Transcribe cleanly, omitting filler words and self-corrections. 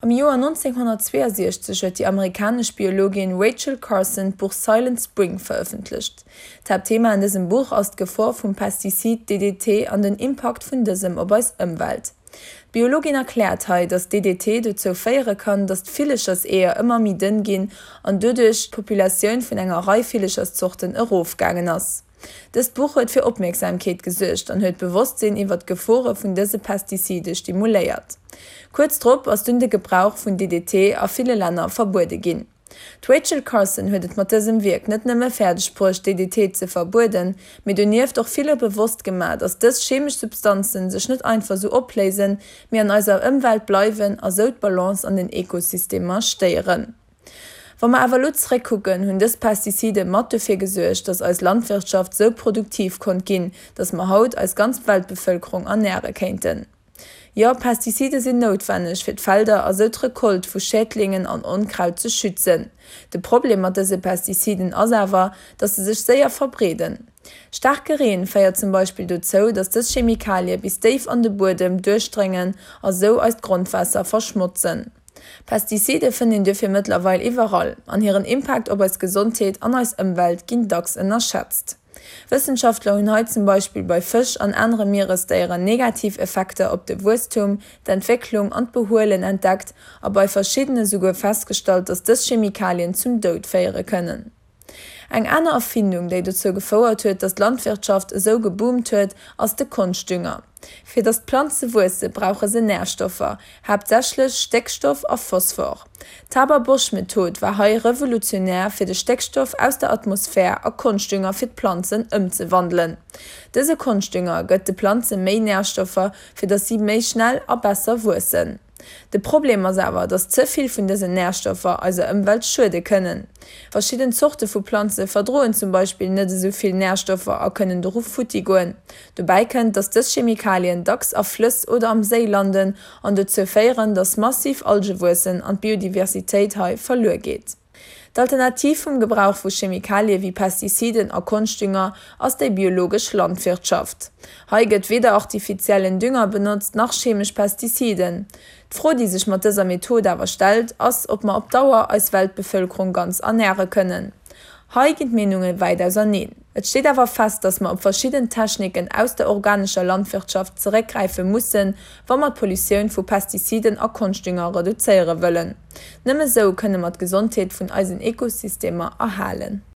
Am Joer 1962 huet déi amerikanesch Biologin Rachel Carson d'Buch Silent Spring verëffentlecht. D'Haaptthema an dësem Buch ass d'Gefor vum Pestizid DDT an den Impakt vun dësem op eis Ëmwelt. D'Biologin erkläert hei, datt DDT dozou féiere kann, datt d'Villecherseeër ëmmer méi dënn ginn an doduerch d'Populatioun vun enger Rei Villecherszorten erofgaangen ass. Dëst Buch huet fir Opmierksamkeet gesuergt an huet d'Bewosstsinn iwwer d'Gefore vun dëse Pestizide stimuléiert. Kuerz drop ass dunn de Gebrauch vun DDT a ville Länner verbuede ginn. D'Rachel Carson huet et mat dësem Wierk net nëmme fäerdeg bruecht DDT ze verbueden, mee donieft och ville bewosst gemaach, datt dës chemesch Substanzen sech net einfach sou opléisen, mee an eiser Ëmwelt bleiwen a sou d'Balance an den Ekosystemer stéieren. Wa mer awer elo zeréckkucken, hunn dës Pestizide mat dofir gesuergt, dass eis Landwirtschaft sou produktiv konnt ginn, dass mer haut eis ganz Weltbevëlkerung ernäre kéinten. Jo, Pestizide sinn noutwenneg, fir d'Felder a sou d'Recolte vu Schädlingen an Onkraut ze schützen. De Problem mat dëse Pestiziden ass awer, dass se sech séier verbreeden. Staarke Reen féiert zum Beispill dozou, dass dës Chemikalie bis déif an de Buedem duerchdréngen a sou eist Grondwaasser verschmotzen. Pestizide fënnt een duerfir mëttlerweil iwwerall, an hiren Impakt op eis Gesondheet an eis Ëmwelt ginn dacks ënnerschätzt. Wëssenschaftler hunn hei zum Beispill bei Fësch an anere Mieresdéieren negativ Effekter op de Wuesstum, d'Entwécklung an d'Behuelen entdeckt a bei verschiddene souguer festgestallt, datt dës Chemikalien zum Doud féiere kënnen. Eng aner Erfindung, déi dozou gefouert huet, datt d'Landwirtschaft esou geboomt huet, ass de Konschtdünger. Fir datt d'Planze wuesse brauche se Närstoffer, haaptsächlech Stéckstoff a Phosphor. D'Haber-Bosch-Method war hei revolutionär fir de Stéckstoff aus der Atmosphär a Konschtdünger fir d'Planzen ëmzewandelen. Dëse Konschtdünger gëtt de Planze méi Närstoffer, fir datt si méi schnell a besser wuessen. De Problem ass awer, dass ze vill vun dësen Närstoffer eiser Ëmwelt schuede kënnen. Verschidden Zorte vu Planze verdroen zum Beispill net esou vill Närstoffer a kënnen doru futti goen. Dobäi kënnt, dass dës Chemikalien dacks a Flëss oder am Séi landen an dozou féieren, dass massiv Alge wuessen an d'Biodiversitéit hei verluer geet. D'Alternativ vum Gebrauch vu Chemikalie wéi Pestiziden a Konschtdünger ass déi biologesch Landwirtschaft. Hei gëtt weder artifiziellen Dünger benotzt nach chemesch Pestiziden. D'Fro déi sech mat dëser Method awer stellt, ass ob mer op Dauer eis Weltbevëlkerung ganz ernäre kënnen. Hei ginn d'Meenunge wäit auserneen. Et steet awer fest, datt mer op verschidden Techniken aus der organescher Landwirtschaft zeréckgräife mussen, wa mer d'Pollutioun vu Pestiziden a Konschtdünger reduzéiere wëllen. Nëmme sou kënne mer d'Gesondheet vun eisen Ekosystemer erhalen.